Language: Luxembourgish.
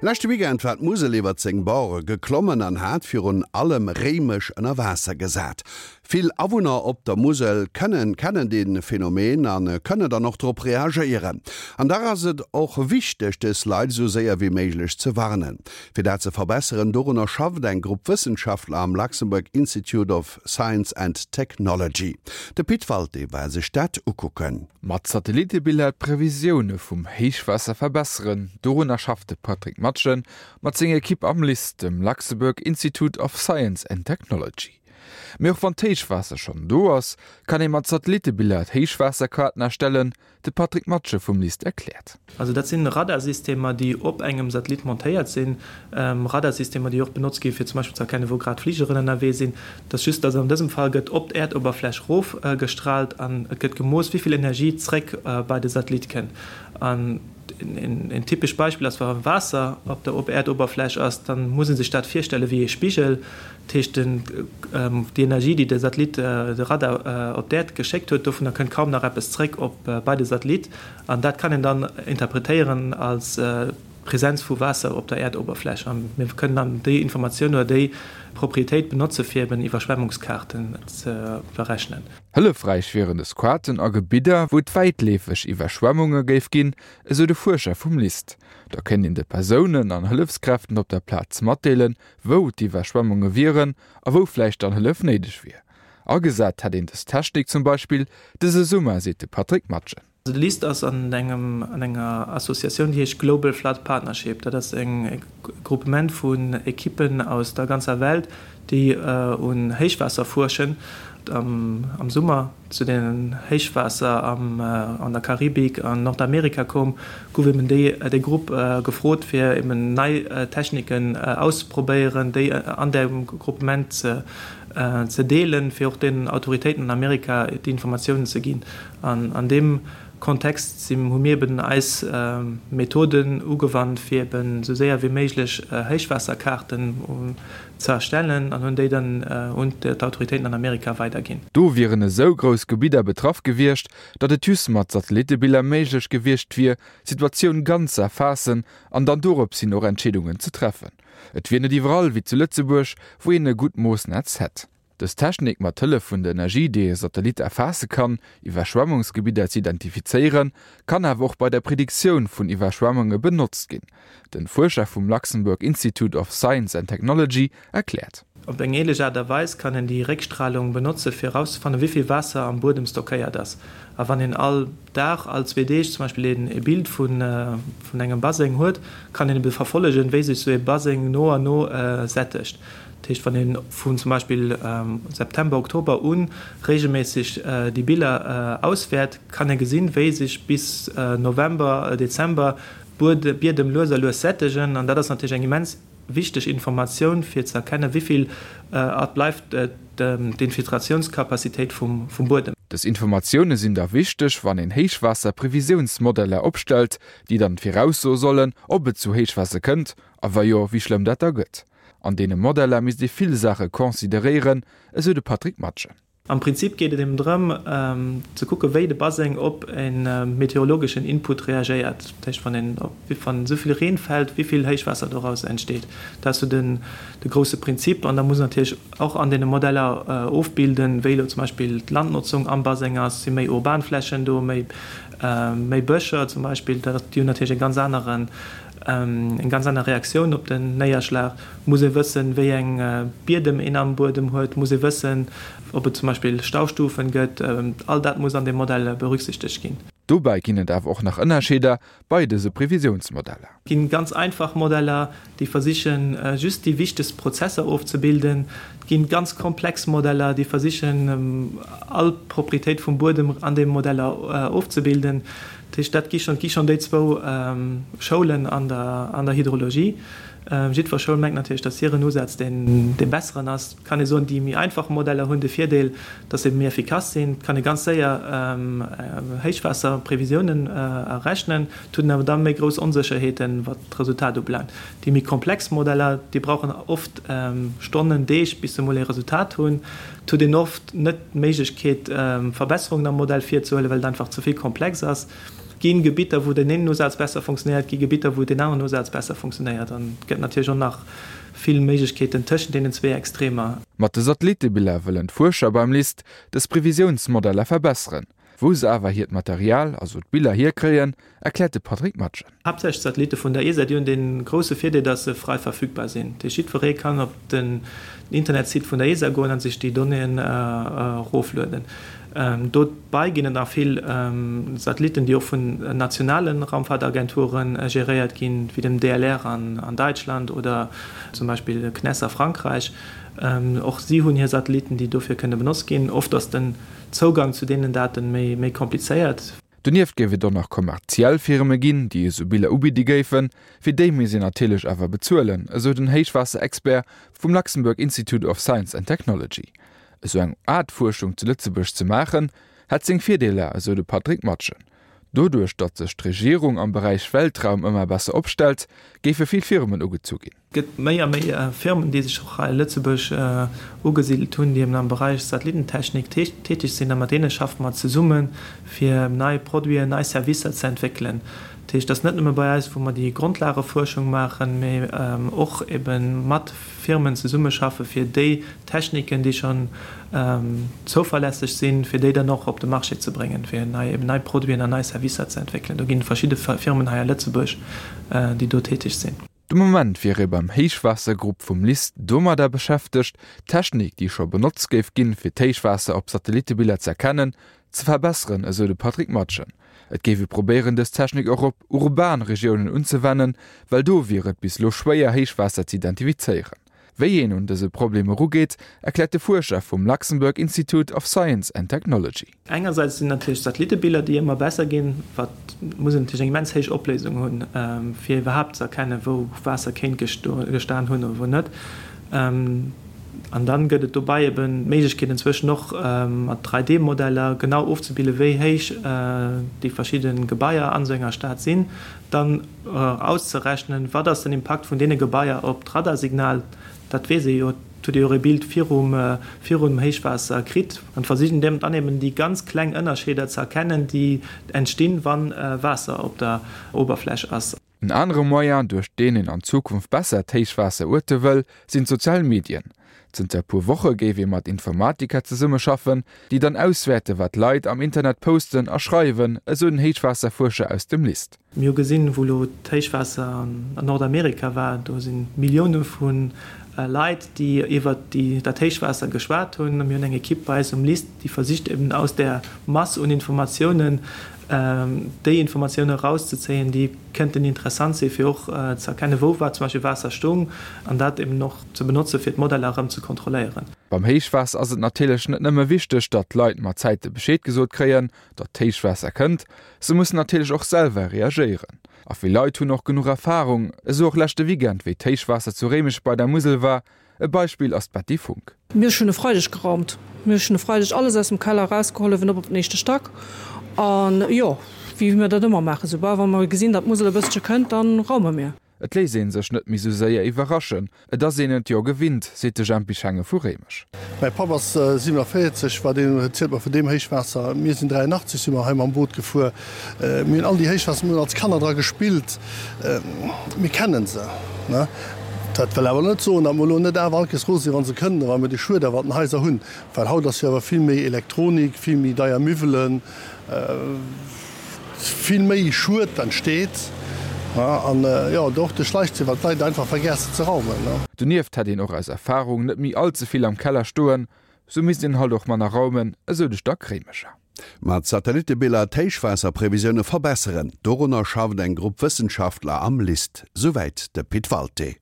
Leschte Weekend war d'Musel iwwert seng Borde geklommen an hat virun allem Réimech ënner Waasser gesat. Vill Awunner op der Musel kënnen kennen dee Phänomen a kënnen dann och drop reagéieren. An dach ass et och wichteg, dës Leit esou séier wéi méiglech ze warnen. Fir dat ze verbesseren, dorunner schafft eng Grupp Wëssenschaftler am Luxembourg Institute of Science and Technology. De Pit Walté war sech dat ukucken. Mat Satellittebiller d'Previsioune vum Héichwaasser verbesseren, dorunner schafft de Patrick Matgen mat senger Ekipp am LIST, dem Luxembourg Institute of Science and Technology. Mee och wann d'Héichwaasser schonn do ass, kann ee mat Satellittebiller d'Héichwaasserkaarten erstellen, De Patrick Matsche vum LIST erkläert. Also dat sinn Radarsystemer, déi op engem Satellit montéiert sinn. Radarsystemer, déi och benotzt gi fir zum Beispill ze erkennen, wou grad Fligeren ënnerwee sinn. Et ass just, datt an dësem Fall gëtt op d'Äerdoberfläch erof gestraalt an et gëtt gemooss, wéi vill Energie zréck bei de Satellit kënnt. An een typescht Beispill ass, wa Waasser op der Äerdoberfläch ass, da muss ee sech dat virstelle wéi ee Spigel. Dat heescht, déi Energie, déi de Satellit, de Radar op d'Äerd geschéckt huet, dovunner kënnt kaum nach eppes zréck op bei de Satellit. An dat kann een dann interpretéieren als Presenz vu Waasser op der Äerdoberfläch. A mir kënnen dann déi Informatioun oder déi Proprietéit benotze fir eben Iwwerschwemmungskaarten ze berechnen. Hëllefräich wieren dës Kaarten a Gebidder, wou et wäitleefeg Iwwerschwemmunge géif ginn, esou de Fuerscher vum LIST. Da kéint een de Persounen an Hëllefskräften op der Plaz matdeelen, wou d'Iwwerschwemmunge wieren a wou vläicht dann Hëllef néideg wier. Agesat hätt een dës Technik zum Beispill dëse Summer, seet de Patrick Matgen. De LIST ass an engem an enger Associatioun, déi heescht Global Flood Partnership. Dat ass e Groupement vun Ekippen aus der ganzer Welt, déi un Héichwaasser fuerschen. Am Summer zu den Héichwaasser an der Karibik an Nordamerika koum, gouf eben déi Grupp gefrot fir eben nei Techniken auszeprobéieren, déi an deem Groupement ze deelen, fir och den Autoritéiten an Amerika déi Informatiounen ze ginn. An an deem Kontext hu mir eben eis Methoden ugewannt, fir eben esou séier wéi méiglech Héichwaasserkaarten ze erstellen an hunn déi dann un d'Autoritéiten an Amerika weiderginn. Do wieren esou grouss Gebidder betraff gewiescht, datt et just mat Satellitebiller méiglech gewiescht wier, d'Situatioun ganz ze erfaassen an dann dorops hin och Entscheedungen ze treffen. Et wier net iwwerall wéi zu Lëtzebuerg, wou een e gutt Moossnetz hätt. Dës Technik, mat Hëllef vun der Energie, déi e Satellit erfaasse kann, Iwwerschwemmungsgebidder ze identifizéieren, kann awer och bei der Prediktioun vun Iwwerschwemmunge benotzt ginn. Den Fuerscher vum Luxembourg Institute of Science and Technology erkläert. Op eng ähnlech Aart a Weis kann een déi Réckstralung benotze fir erauszefannen, wéi vill Waasser am Buedem stockéiert ass. A wann een all Dag, all zwee Deeg zum Beispill een e Bild vun engem Baseng huet, kann een ebe verfollegen, wéi sech sou ee Baseng no an no sättegt. Dat heescht, wann een vun zum Beispill September, Oktober u regelméisseg déi Biller auswäert, kann ee gesinn, wéi sech bis November, Dezember d'Biedem lues a lues sättegen. An dat ass natierlech eng immens wichteg Informatioun, fir ze erkennen, wéi vill et bleift d'Infiltratiounscapacitéit vum Buedem. Dës Informatioune sinn da wichteg, wann een Héichwaasserprevisiounsmodeller opstellt, déi dann viraussoe sollen, ob et zu Héichwaasser kënnt a wa jo, wéi schlëmm dat da gëtt. An deene Modeller misst ee vill Saache consideréieren, esou de Patrick Matgen. Am Prinzip geet et eben drëm, ze kucke wéi de Baseng op e meteorologeschen Input reagéiert. Dat heescht, wann een, wann esou vill Reen fält, wéi vill Héichwaasser doraus entsteet. Dat ass sou den, de grousse Prinzip. An da muss een natierlech och an deene Modeller ofbilden, wéi elo zum Beispill d'Landnotzung am Baseng ass. Si méi urban Flächen do, méi, méi Bëscher zum Beispill. Dat, déi hunn natierlech e ganz aneren, eng ganz aner Reaktioun op den Néierschlag. Muss ee wëssen, wéi eng Biedem een am Buedem huet, muss ee wëssen, ob et zum Beispill Staustufen gëtt. All dat muss an deem Modell berücksichtegt ginn. Dobäi ginn et awer och nach Ënnerscheeder bei dëse Previsiounsmodeller. Et ginn ganz einfach Modeller, déi versichen, just déi wichtegst Prozesser ofzebilden. Et ginn ganz komplex Modeller, déi versichen, all Proprietéit vum Buedem an deem Modeller ofzebilden. Dat heescht, dat gi schonn, gi schonn déi zwou Schoulen an der, an der Hydrologie. Jiddwer Schoul mengt natierlech, datt hiren Usaz deen, dee besseren ass. Et kann ee soen, déi méi einfach Modeller hunn de Virdeel, datt se méi effikass sinn. Et kann ee ganz séier Héichwaasserprevisiounen errechnen. Et huet een awer da méi grouss Onsécherheeten, wat d'Resultat ubelaangt. Déi méi komplex Modeller, déi brauchen oft Stonnen, Deeg, bis se emol ee Resultat hunn. Et huet een oft net d'Méiglechkeet, Verbesserungen am Modell virzehuelen, well et einfach ze vill komplex ass. gi Gebitter, wou deen een Usaz besser funktionéiert, et gi Gebitter, wou deen aneren Usaz besser funktionéiert. An et gëtt natierlech och nach vill Méiglechkeeten tëschent deenen zwee Extremer. Mat de Satellitebiller wëllen d'Fuerscher beim LIST dës Previsiounsmodeller verbesseren. Wou se awer hiert Material, also d'Biller, hierkréien, erkläert de Patrick Matgen. Haaptsächlech d'Satellitte vun der ESA, déi hunn dee grousse Virdeel, datt se frei verfügbar sinn. Dat heescht, jiddweree kann op den Internetsite vun der ESA goen a sech déi Donnéeën eroflueden. Dobei ginn et nach vill Satellitten, déi och vun nationale Raumfaartagenture geréiert ginn, wéi dem DLR an Däitschland oder zum Beispill CNES a Frankräich. Och si hunn hir Satellitten, déi dofir kënne benotzt ginn. Oft ass den Zougang zu deenen Daten méi komplizéiert. Donieft géif et och nach kommerziell Firme ginn, déi esou Biller ubidde géifen. Fir déi misst een natierlech awer bezuelen, esou den Héichwaasser-Expert vum Luxembourg Institute of Science and Technology. Esou eng Aart Fuerschung zu Lëtzebuerg ze maachen, hätt seng Virdeeler, esou de Patrick Matgen. Doduerch, datt sech d'Regierung am Beräich Weltraum ëmmer besser opstellt, géife vill Firmen ugezu ginn. Et gëtt méi a méi Firmen, déi sech och hei a Lëtzebuerg ugesidelt hunn, déi eben am Beräich Satellitentechnik täteg sinn. A mat deene schaffe mer zesummen, fir nei Produiten, nei Servicer ze entwéckelen. Dat heescht, et ass net nëmme bei eis, wou mer déi Grondlagefuerschung maachen, mee och ebe mat Firmen zesummeschaffe fir déi Techniken, déi schonn zouverlässeg sinn, fir déi dann och op de Marché ze bréngen, fir nei, eben nei Produiten an nei Servicer ze entwéckelen. Do ginn et verschidde Firmen hei a Lëtzebuerg, déi do täteg sinn. De Moment wier ee beim Héichwaassergrupp vum LIST domadder beschäftegt, d'Technik, déi scho benotzt géif ginn, fir d'Héichwaasser op Satellitebiller z'erkennen, ze verbesseren, esou de Patrick Matgen. Et géif ee probéieren, dës Technik och op urban Regiounen unzewennen, well do wier et bis elo schwéier, Héichwaasser z'identifizéieren. Wéi een un dëse Problem erugeet, erkläert de Fuerscher vum Luxembourg Institute of Science and Technology. Engersäits sinn natierlech d'Satellitebiller, déi ëmmer besser ginn, wat muss een natierlech eng immens héich Opléisung hunn, fir iwwerhaapt ze erkennen, wou Waasser kéint gestan hunn oder wou net. An dann gëtt et dobei eben d'Méiglechkeet inzwëschen och mat 3D-Modeller genau ofzebillen, wéi héich déi verschidde Gebaier an esou enger Stad sinn. Dann auszerechnen, wat ass den Impakt vun deene Gebaier op d'Radarsignal, dat weess ee jo, et hutt ee jo och ee Bild virum virum Héichwaasser kritt, an versichen dann eben déi ganz kleng Ënnerscheeder ze erkennen, déi entstinn, wa Waasser op der Oberfläch ass. En anere Moyen, duerch deen een an Zukunft besser d'Héichwaasser uerte wëll, sinn d'sozial Medien. Zënter e puer Woche géif ee mat Informatiker zesummeschaffen, déi dann auswäerte wat Leit am Internet posten a schreiwen, esou den Héichwaasserfuerscher aus dem LIST. Mir hu gesinn, wou elo d'Héichwaasser an Nordamerika war, do si Millioune vu Leit, déi iwwert dat Héichwaasser geschwat hunn. Mir hunn eng Ekipp bei eis um LIST, déi versicht eben aus där Mass un Informatiounen déi Informatiounen erauszezéien, déi kënnten interessant sinn, fir och ze erkennen, wou war zum Beispill Waasser stoung, an dat eben och ze benotzen, fir d'Modeller erëm ze kontrolléieren. Beim Héichwaasser ass et natierlech net nëmme wichteg, datt d'Leit mat Zäite Bescheed gesot kréien, datt d'Héichwaasser kënnt, se mussen natierlech och selwer reagéieren. A vill Leit hunn och genuch Erfarung, esou och leschte Weekend, wéi d'Héichwaasser zu Réimech bei der Musel war. E Beispill ass d'Betty Funck. Mir hunn e Freideg geraumt. Mir hunn e Freideg alles aus dem Keller erausgeholl, uewen op op den éischte Stack. An jo, wéi mir dat ëmmer maachen, soubal wa mer gesinn, datt d'Musel e bëssche kënnt, da raume mir. Et léisst ee sech net méi sou séier iwwerraschen, et ass een et jo gewinnt, seet de Jempy Schenge vu Réimech. Mäi Papp ass 47, war deen, erzielt mer vun deem Héichwaasser. Mir sinn 83 si mer hei mam Boot gefuer. Mir hunn all déi Héichwaasser, mir hunn als Kanner dra gespillt, mir kennen se. Dat wëll awer net soen, datt mer elo net awer all Kees rose sinn, wa se kënnen, wa mer dee Schued awer an den Haiser hunn. Well haut ass jo awer vill méi Elektronik, vill méi deier Miwwelen. Vill méi Schued entsteet an jo och de Schleichzee, well d'Leit einfach vergessen ze raumen. Donieft hätt een och aus Erfarung net méi all ze vill am Keller stoen, sou misst een halt och manner raumen, esou de Stack Réimecher. Mat Satellittebiller d'Héichwaasserprevisioune verbesseren, dorunner schafft eng Grupp Wëssenschaftler am LIST. Souwäit de Pit Walté.